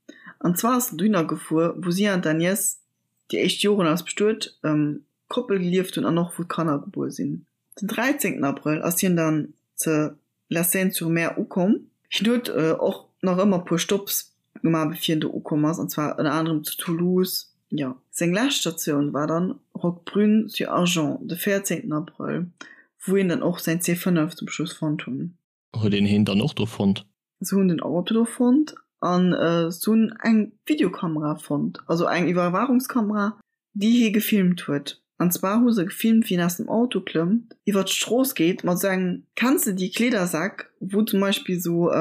An zwar ass en dohinner gefuer wou si an d'Agnès déi éischt Joren als bestuet Koppel gelieft hunn an och wou d'Kanner gebuer sinn. Den 13 Abrëll ass hien dann ze La Seyne-sur-Mer ukomm. Hien huet och nach ëmmer puer Stopps gemaach bevir hien do ukomm ass, an zwar ënner anerem zu Toulouse. Jo, seng lescht Statioun war dann Roquebrune-sur-Argens de 14 Abrëll, wou een dann och säin C5 zum Schluss fonnt hunn. Huet een heen dann och do fonnt? Se hunn den Auto do fonnt an se hunn eng Videokamera fonnt, also eng Iwwerwaachungskamera, déi hie gefilmt huet. An zwar hu se gefilmt, wéi en aus dem Auto klëmmt, iwwer d'Strooss geet mat esou engem, kenns de déi Kleedersäck, wou zum Beispill esou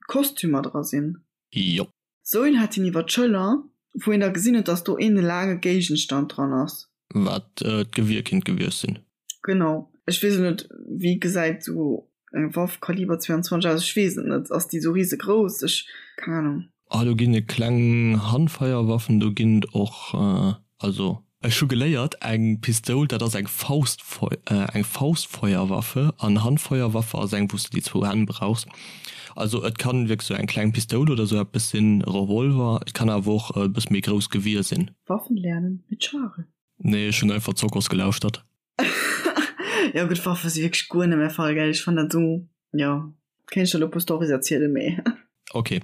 Kostümer dra sinn? Jo. Sou een hat hien iwwer d'Schëller, wou een da gesinn huet, dass do een laange Géigenstand dran ass. Wat d'Gewier kinnt gewiescht sinn. Genau. Ech weess elo net, wéi gesäit sou eng Waff Kaliber 22 aus? Ech weess et net. Ass déi sou risegrouss? Ech, keng Ahnung. Ah, do ginn et kleng Handfeierwaffen, do ginn et och, also. Ech hu geléiert, eng Pistoul, dat ass eng Faustfeu, eng Faustfeuerwaffe, an Handfeuerwaffe ass eng, wou s de déi zwou Hänn brauchs. Also et kann wierklech sou eng kleng Pistoul oder sou eppes sinn, e Revolver, et kann awer och e bësse méi grouss Gewier sinn. Waffen lernen mit Charel. Nee, ech hunn einfach Zokos gelauschtert. Jo gutt, Waffe si wierklech guer net mäi Fall, gell, ech fannen dat sou, jo, kéint ech der elo e puer Storys erzielen, mee. Ok.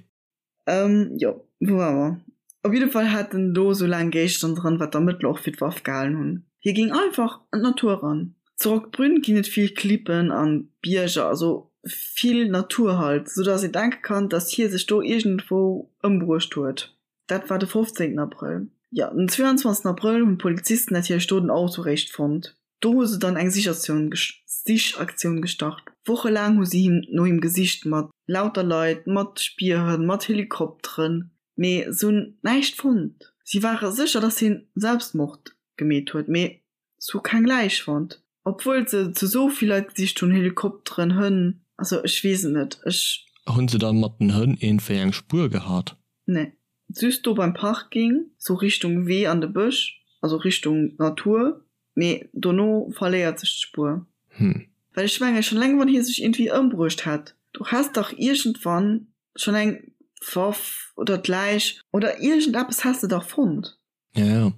Ähm, jo, wou ware mer? Op jidde Fall hat en do sou laang Géigestänn dran, wat d'Ermëttler och fir d'Waff gehalen hunn. Hie géing einfach an d'Natur eran. Zu Roquebrune ginn et vill Klippen an Bierger, also vill Natur halt, sou dass een denke kann, dass hie sech do iergendwou ëmbruecht huet. Dat war de 15 Abrëll. Jo, den 22 Abrëll hunn d'Polizisten natierlech do den Auto réischt fonnt. Do hu se dann eng Sichaktioun gestart. Wochelaang hu si him no him gesicht, mat lauter Leit, mat Spierhënn, mat Helikopteren, mee se hunn näischt fonnt. Si ware sécher, datt hien Selbstmord gemeet huet, mee se hu keng Läich fonnt, obwuel se zu sou vill Leit gesicht hunn, Helikopteren, Hënn, also ech weess et net, ech. Hunn se dann mat den Hënn iergendwéi eng Spuer gehat? Nee, just do beim Parking, sou Richtung Wee an de Bësch, also Richtung Natur, mee dono verléiert sech d'Spuer. Hm. Well ech mengen, schon eleng wann hie sech iergendwéi ëmbruecht hätt, du häss dach iergendwann schon eng Waff oder d'Läich oder iergendeppes häss de dach fonnt. Ja, ja.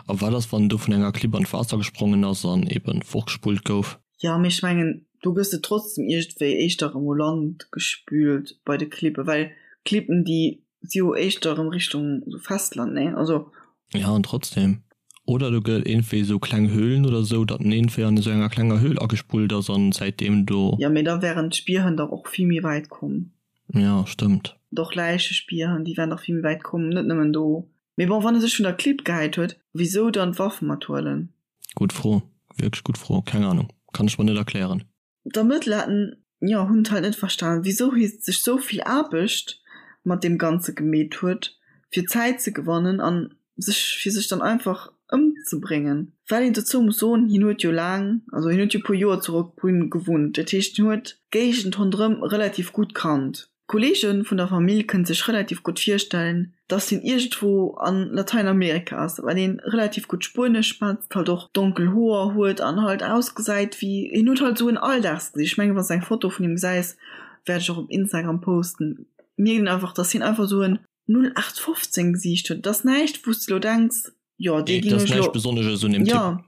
A wat ass, wann en do vun enger Klipp an d'Waasser gesprongen ass an eben fortgespullt gouf? Jo, mee ech mengen, do gëss de trotzdem iergendwéi éischter erëm u Land gespült bei de Klippen, well Klippen, déi si jo éischter erëm Richtung sou Festland, nee? Also. Ja, an trotzdem. Oder do gëtt et iergendwéi esou kleng Höhlen oder esou, datt en iergendwéi an esou enger klenger Höhl agespullt ass an säitdeem do. Jo, mee da wären d'Spierhënn dach och vill méi wäit komm. Ja, stëmmt. Doch Läichespierhënn, déi wären dach vill méi wäit komm, net nëmmen do. Mee bon, wann e sech vun der Klipp gehäit huet, wisou dann d'Waff mathuelen? Gutt Fro, wierklech gutt Fro, keng Ahnung, kann ech mer net erklären. D'Ermëttler haten, jo, hunn et halt net verstan, wisou hie sech sou vill Aarbecht mat deem Ganze gemeet huet, fir Zäit ze gewannen an sech, fir sech dann einfach ëmzebréngen. Well een dozou muss soen, hien huet jo laang, also hien huet jo puer Joer zu Roquebrune gewunnt, dat heescht hien huet d'Géigend ronderëm relativ gutt kannt. D'Kolleege vun der Famill kënne sech relativ gutt virstellen, Dass hien iergendwou an Lateinamerika ass, well hien relativ gutt Spuenesch schwätzt, halt och donkel Hoer huet an halt ausgesäit wéi, hien huet halt esou en Alldagsgesicht. Ech mengen, wann s de eng Foto vun him gesäis, wäert ech och op Instagram posten, mierkt een einfach, dass hien einfach esou en 0815 Gesiicht huet. Et ass näischt, wou s de elo denks, jo, dee géing ech elo. Besonnesches un deem Typ. Jo,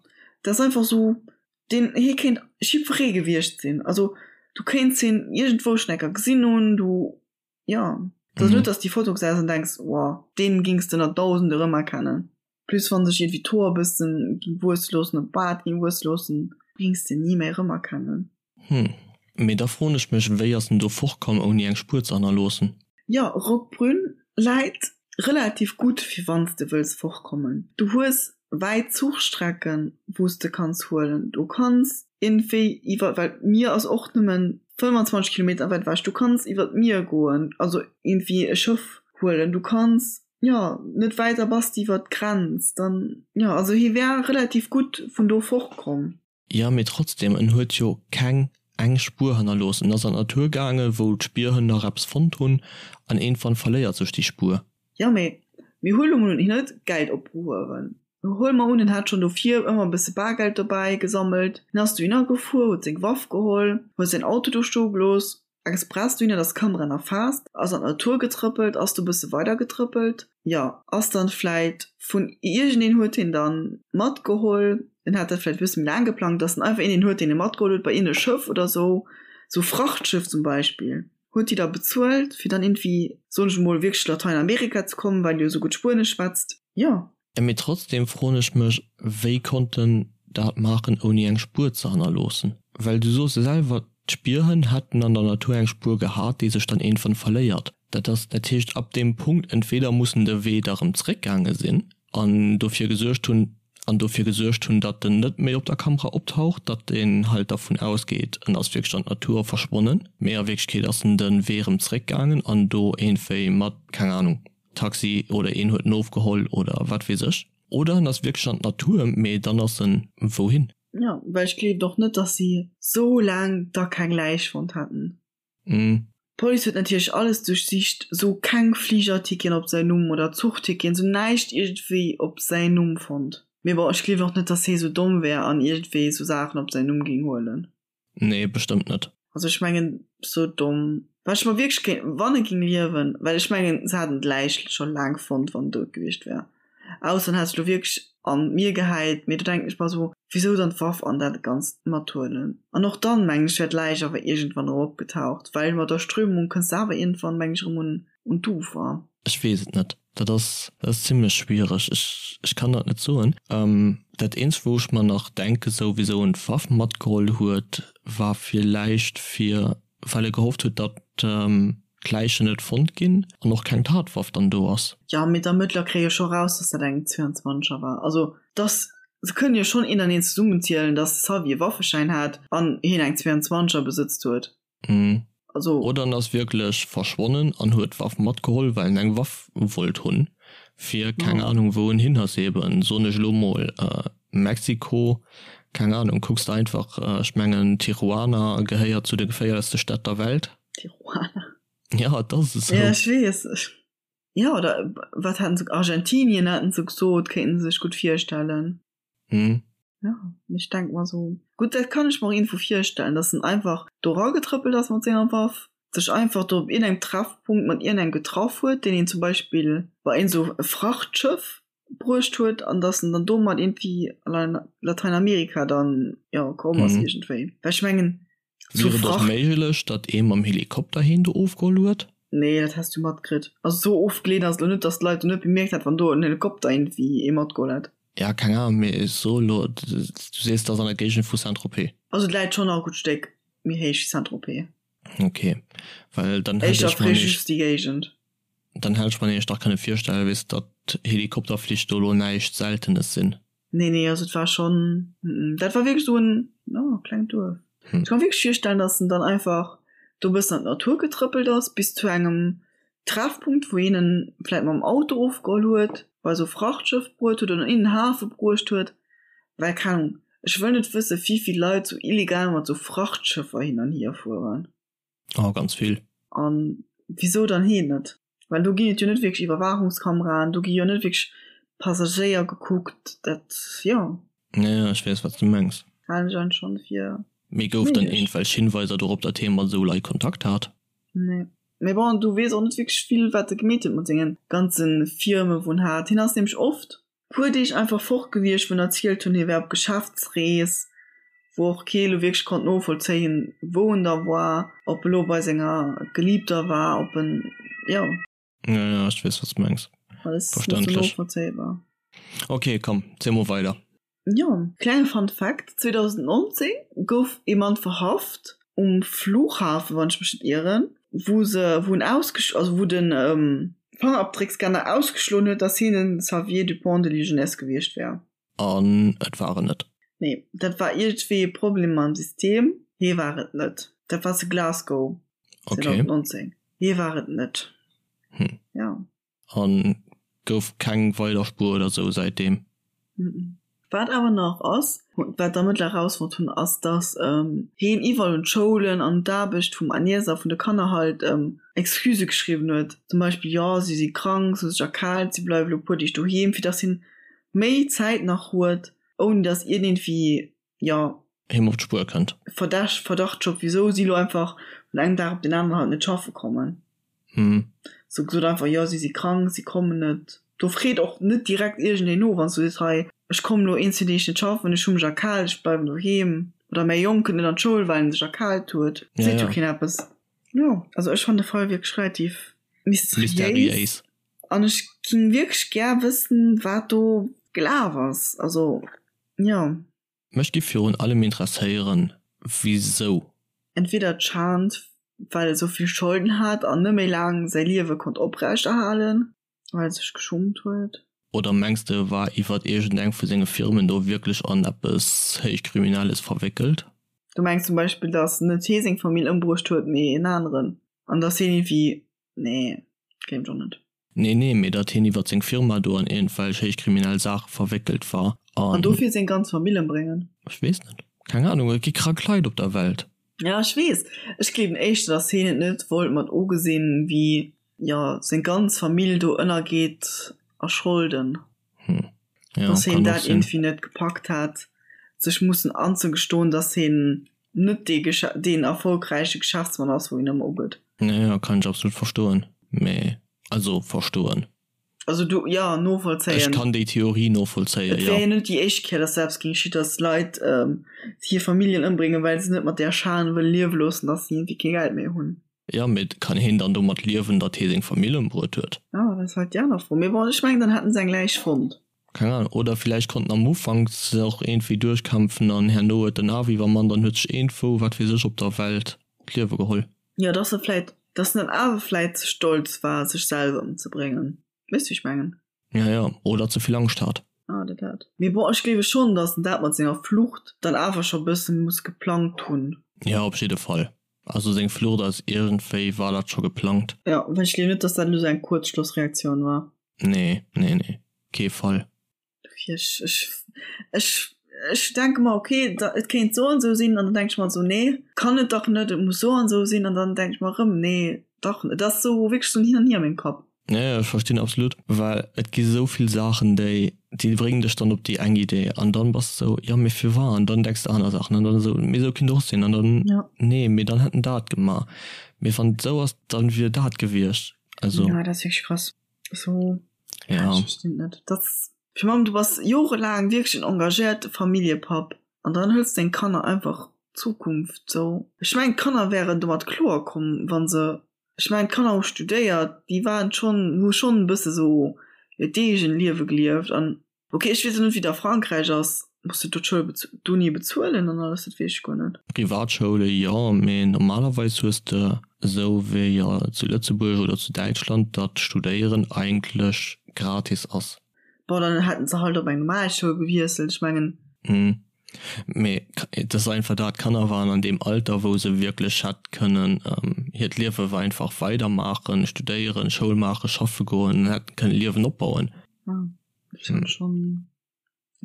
dat ass einfach esou, deen, hie kéint jiddweree gewiescht sinn. Also du kéints hien iergendwou schonn eng Kéier gesinn hunn, du. Jo, et ass net, dass déi Foto gesäis an denks, wow, deen gings de ënner Dausende rëmerkennen. Plus wann sech iergendwéi d'Hoer e bëssen ging wuesse loossen oder d'Baart ging wuesse loossen, gings de ni méi rëmerkennen. Hm, mee da froen ech mech, wéi ass en do fortkomm ouni eng Spuer ze hannerloossen? Jo, Roquebrune läit relativ gutt fir wanns de wëlls fortkommen. Du hues wäit Zuchstrecken wous de kanns huelen. Du kanns iergendwéi iwwer, well d'Mier ass och nëmmen 25 Kilometer wäit ewech, du kanns iwwer d'Mier goen, also iergendwéi e Schëff huelen. Du kanns, jo, net wäit da bass de iwwer d'Grenz dann, jo, also hie wär relativ gutt vun do fortkomm. Jo, mee trotzdem, en huet jo keng eng Spuer hannerlooss. En ass an d'Natur gaangen, wou d'Spierhënn nach eppes fonnt hunn, an iergendwann verléiert sech déi Spuer. Jo, mee mir huele mol un, hien huet Geld opgehuewen. Huele mer un, en hat schonn dovir ëmmer e bësse Bargeld dobäi gesammelt. Hien ass dohinner gefuer, huet seng Waff geholl, huet säin Auto do stoe gelooss, express dohinner, dass d'Kamera nach faasst, ass an d'Natur getrëppelt, ass do bësse weider getrëppelt, jo, ass dann vläit vun iergendeen huet hien dann matgeholl, en hat dat vläit e bësse méi laang geplangt, dass en einfach iergendeen huet, deen e matgeholl huet bei iergend e Schëff oder sou, sou Frachtschëff zum Beispill, huet déi da bezuelt, fir dann iergendwéi, soen ech emol, wierklech Lateinamerika ze kommen, well e jo sou gutt Spuenesch schwätzt, jo. Mee trotzdem froen ech mech, wéi konnt en dat maachen ouni eng Spuer ze hannerloossen? Well du soos selwer, d'Spierhënn hätten an der Natur eng Spuer gehat, déi sech dann iergendwann verléiert. Dat ass, dat heescht ab deem Punkt, entweder muss en de Wee da rëm zréckgaange sinn an dofir gesuergt hunn, an dofir gesuergt hunn, datt en net méi op der Kamera optaucht, datt een halt dervun ausgeet, en ass wierklech an d'Natur verschwonnen, mee a Wierklechkeet ass en de Wee rëm zréckgaangen an do iergendwéi mat, keng Ahnung, Taxi oder een huet en ofgeholl oder wat weess ech. Oder en ass wierklech an d'Natur, mee dann ass en wouhin? Jo, well ech gleewen och net, dass si sou laang da keng Läich fonnt hätten. D'Police huet natierlech alles duerchsicht, sou keng Fligerticketen op säin Numm oder Zuchticketen, sou näischt iergendwéi op säin Numm fonnt. Mee bon, ech gleewen och net, dass hee sou domm wär an iergendwéi sou Saachen op säin Numm géing huelen. Nee, bestëmmt net. Also ech mengen sou domm wat ech mer wierklech kéint wann e ging liewen, well ech mengen se haten d'Läich scho laang fonnt wann en dout gewiescht wär, ausser en hätt sech lo wierklech an d'Mier gehäit, mee do denken ech mer sou wisou dann d'Waff an dat ganzt mathuelen an och dann mengen ech wär d'Läich awer iergendwann erëm opgetaucht, well mat der Strömung kënns de awer iergendwann mengen ech erëm un un d'Ufer. Ech weess et net. Dat ass, dat ass zimlech schwiereg. Ech, ech kann dat net soen. Dat eenzegt, wou ech mer nach denke sou, wisou en d'Waff matgeholl huet, war villäicht fir, well e gehofft huet, datt d'Läichen net fonnt ginn an och keng Tatwaff dann do ass. Jo, mee d'Ermëttler kréie jo scho raus, datt dat eng 22er war. Also, dass, se kënnen jo schonn een an een zesummenzielen, datt de Xavier e Waffeschäin hat an hien eng 22er besëtzt huet. Mhm. Also. Oder en ass wierklech verschwonnen an huet d'Waff matgeholl, well en eng Waff wollt hunn, fir keng Ahnung wou en hin ass. Eben, soen ech elo mol, Mexiko, keng Ahnung, kucks de einfach, ech mengen Tijuana gehéiert zu de geféierlechste Stätt der Welt. Tijuana. Ja, et ass esou. Ja, ech weess. Ja, oder wat haten se, Argentinien haten se gesot, kéinten se sech gutt virstellen. Mhm. Ja, ech denk mer sou, gutt, dat kann ech mer och iergendwou virstellen, dass en einfach do eragetrëppelt ass mat senger Waff, sech einfach do op iergendengem Treffpunkt mat iergendengem getraff huet, deen een zum Beispill bei iergend sou e Frachtschëff bruecht huet an dass en dann domat iergendwéi an Lateinamerika dann, jo, komm ass iergendwéi. Well ech mengen, Wier et och méiglech, datt ee mam Helikopter heen do ofgeholl huet? Nee, dat häss du matkritt. Also sou ofgeleent ass et lo net, datt d'Leit do net bemierkt hätt, wann do en Helikopter iergendwéi ee matgeholl hätt. Ja, keng Ahnung, mee ech soe lo, du sees, et ass an der Géigend vu Saint-Tropez. Also et läit schonn nach e gutt Stéck méi héich wéi Saint-Tropez. Ok, well dann hätt ech mer just déi Géigend. Dann hätt ech mer nämlech dach kënne virstellen, weess, datt Helikopterflich do lo näischt Seltenes sinn. Nee, nee, also et war schonn, dat war wierklech esou en, jo, klengt Duerf. Ech ka mer wierklech virstellen, datt en dann einfach do e bëssen an d'Natur getrëppelt ass, bis zu engem Treffpunkt, wou een en vläit mam Auto ofgeholl huet, bei esou e Frachtschëff bruet huet oder in den Hafe bruecht huet. Well, keng Ahnung, ech wëll net wësse wéi vill Leit sou illegal mat sou Frachtschëffer hin an hier fueren. Oh, ganz vill. An wisou dann heen net? Well do ginn et jo net wierklech Iwwerwaachungskameraen, do gi jo net wierklech Passagéier gekuckt, dat, jo. Ja, ja, ech weess, wat s du mengs. Halen ech eigentlech schonn fir Mee gouf dann méiglech. iergendwelch Hinweiser dorop, datt hie mat esou Leit Kontakt hat? Nee. Mee bon, du weess och net wierklech vill, wat e gemeet huet mat senge ganze Firme wou en hat. Hien ass nämlech oft puer Deeg einfach fort gewiescht, wou en erzielt hunn, hie wär op Geschäftsrees, wou och kee lo wierklech konnt novollzéien, wou en da war, ob e lo bei senger Geliebter war, ob en, jo. Ja, ja, ech weess, wat s de mengs. Alles net sou novollzéibar. Ok, komm, ziel mol weider. Jo, klenge Fun Fact, 2019 gouf ee Mann verhaft um Flughafen, wann ech mech net ieren, wou se, wou en ausgesch-, also wou den Fangerabdréckscanner ausgeschloen huet, dass hien den Xavier Dupont de Ligonnès gewiescht wär. An et war en net? Nee, dat war iergendwéi e Problem mam System, hie war et net. Dat war zu Glasgow 2019, hie war et net. Hm. Jo. An gouf keng weider Spuer oder sou säitdeem. Wat awer nach ass, wat d'Ermëttler erausfonnt hunn, ass, datt heen iwwerall un d'Schoulen an un d'Aarbecht vum Agnès a vun de Kanner halt Excusë geschriwwen huet. Zum Beispill, jo, si si krank, si hu sech erkaalt, si bleiwe lo e puer Deeg doheem, fir datt hien méi Zäit nach huet, ouni datt iergendwéi, jo. Him op d'Spuer kënnt. Verdacht, Verdacht wisou si lo einfach vun engem Dag op den aneren halt net schaffe kommen. Hm. Sou gesot einfach, jo si si krank, si kommen net. Do freet och net direkt iergendeen no, wann s du sees, hei ech kommen lo een, zwee Deeg net schaffen, ech hu mech erkaalt, ech bleiwen doheem. Oder mäi Jong kënnt net an d'Schoul, well en sech erkaalt huet. Ja, Seet jo ja. keen eppes. Jo, also ech fannen de Fall wierklech relativ mysteriéis. Mysteriéis. An ech ging wierklech gär wëssen, wat do gelaf ass. Also, jo. Mech giff virun allem interesséieren wisou. Entweder d'Schand well e sou vill Scholden hat an net méi laang säi Liewe konnt oprecht erhalen, well e sech geschummt huet. Oder mengs de e war iwwert iergend eng vu senge Firmen do wierklech an eppes héichkriminelles verwéckelt? Du mengs zum Beispill dass net hee seng Famill ëmbruecht huet mee en aneren an dass heen iergendwéi, nee gleewen ech och net. Nee, nee, mee datt hien iwwert seng Firma do an iergendwelch héichkriminell Saache verwéckelt war an. An dofir seng ganz Famill ëmbréngen? Ech weess net. Keng Ahnung, et gi krank Leit op der Welt. Ja, ech weess. Ech gleewen éischter, datt hien et net wollt mat ugesinn, wéi, jo, seng ganz Famill do ënnergeet a Scholden. Hm. Ja, Datt hien dat iergendwéi net gepackt hat, sech mussen anzegestoen, datt hien net dee deen erfolgräiche Geschäftsmann ass, wou hien ëmmer ugëtt. Ja, ja, kann ech absolut verstoen. Mee, also verstoen. Also du, ja, novollzéien. Ech kann déi Theorie novollzéien, jo. Et wär jo net déi éischt Kéier, datt dat eppes géing geschitt, datt Leit hir Familljen ëmbréngen, well se net mat där Schan wëlle liewe loossen, datt se iergendwéi kee Geld méi hunn. Jo, mee kann heen dann domat liewen, datt hee seng Famill ëmbruet huet? Jo, dat ass halt déi aner Fro. Mee bon, ech mengen, dann hätten se eng Läich fonnt. Keng Ahnung. Oder villäicht konnt en am Ufank sech och iergendwéi duerchkämpfen an herno huet den awer iwwermannt an huet sech iergendwou, wat weess ech, op der Welt d'Liewe geholl. Jo, dass e vläit, dass en dann awer vläit ze stolz war, sech selwer ëmzebréngen. Weess du, wéi ech mengen? Ja, ja. Oder ze vill Angscht hat. Ah, dat dat. Mee bon, ech gleewe schonn, dass en dat mat senger Flucht dann awer scho bësse muss geplangt hunn. Jo, op jidde Fall. Also seng Flucht ass iergendwéi, war dat scho geplangt? Jo, well ech gleewen net, dass dat elo sou eng Kuerzschlussreaktioun war. Nee, nee, nee, kee Fall. Dofir, ech, ech, ech, ech denke mer, okay, da, et kéint sou an sou sinn, an dann denke ech mer sou, nee, kann et dach net, et muss sou an sou sinn, an dann denke ech mer erëm, nee, dach, et ass sou wierklech sou en Hin an Hier a mengem Kapp. Ja, ja, ech verstinn absolut, well et gi sou vill Saachen, déi, déi bréngen dech dann op déi eng Idee an dann bass de sou, jo mee firwat? An dann denks de aner Saachen an dann esou, mee sou kinnt och sinn an dann, Ja. nee, mee dann hätt en dat gemaach, mee wann et sou ass, dann wier dat gewiescht, also. Ja, dat ass wierklech krass. So, ja, ja. Ech verstinn net. Dat ass, fir Mamm, du bass jorelaang wierklech en engagéierte Familljepapp an dann hëls deng Kanner einfach d'Zukunft sou. Ech mengen, d'Kanner wären domat kloer komm, wann se Ech mengen d'Kanner hu studéiert, déi waren schonn, hu schonn e bësse sou hiert eegent Liewe gelieft an ok ech weess och net wéi et a Frankräich ass, muss de do d'Schoul bez d'Uni bezuelen an alles, dat weess ech guer net. Privatschoule jo, mee normalerweis hues de esou wéi jo zu Lëtzebuerg oder zu Däitschland, datt Studéieren eigentlech gratis ass. Bon dann hätten se halt op eng normal Schoul gewiesselt, ech mengen. Mee et ass einfach dat, d'Kanner waren an deem Alter, wou se wierklech hätt kënnen hiert Liewe einfach weidermaachen, studéieren, Schoul maachen, schaffe goen an hätten kënnen e Liewen opbauen. Ja, ech hunn schonn,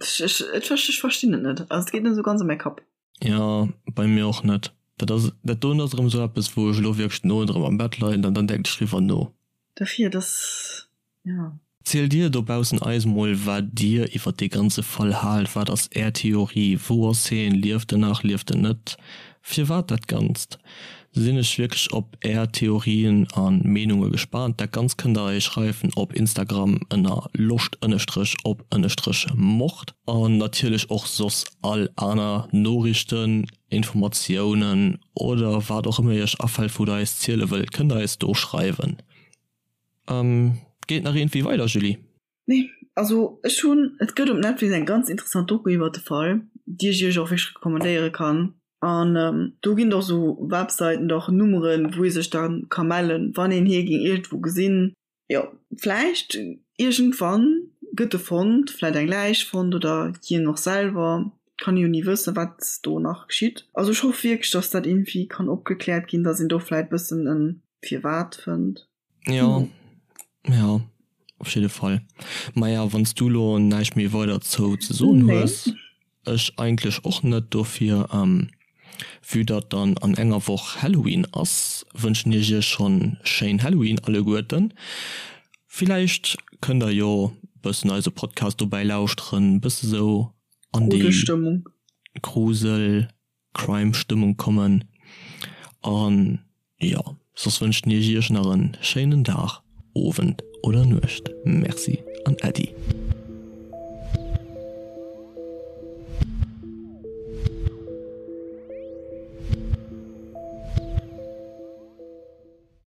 ech, ech, ech verstinn et net. Also et geet net esou ganz a mäi Kapp. Jo, bei mir och net. Dat ass, dat doen ass erëm esou eppes, wou ech elo wierklech den Owend erëm am Bett leien an dann denken ech driwwer no. Dofir, dass, jo. Zielt dir dobaussen eis mol wat dir iwwert dee ganze Fall haalt, wat ass är Theorie, wou ass heen, lieft en nach, lieft en net, firwat dat Ganzt? Sinn ech wierklech op är Theorien a Meenunge gespaant. Dat Ganzt kënnt der eis schreiwen op Instagram ënner loscht ënnestrech op ënnestrech mord an natierlech och soss all aner Noriichten, Informatiounen oder wat och ëmmer iech afält wou der eis ziele wëllt, kënnt der eis do schreiwen. Geet nach iergendwéi weider, Julie? Nee, also ech hunn, et gëtt op Netflix eng ganz interessant Doku iwwert de Fall, déi ech iech och wierklech recommandéiere kann. An do ginn et och sou Websäiten oder och Nummeren, wou ee sech da ka mellen, wann een hie géing iergendwou gesinn. Jo, vläicht iergendwann gëtt e fonnt, vläicht eng Läich fonnt oder hien och selwer, kann ee jo ni wëssen, wat do nach geschitt. Also ech hoff wierklech, dass dat iergendwéi kann opgekläert ginn, dass een do vläicht bëssen e Firwat fënnt. Jo, jo, op jidde Fall. Maja, wann s du lo näischt méi weider zou ze soen hues, ech eigentlech och net. Dofir, vue datt dann an enger Woch Halloween ass, wënschen ech iech schonn schéin Halloween alleguerten. Villäicht kënnt der jo bëssen eise Podcast dobäi lauschteren, bësse sou an déi Grusel Crime Stëmmung kommen an jo soss wënschen ech iech nach en schéinen Dag, Owend oder Nuecht. Merci an Äddi.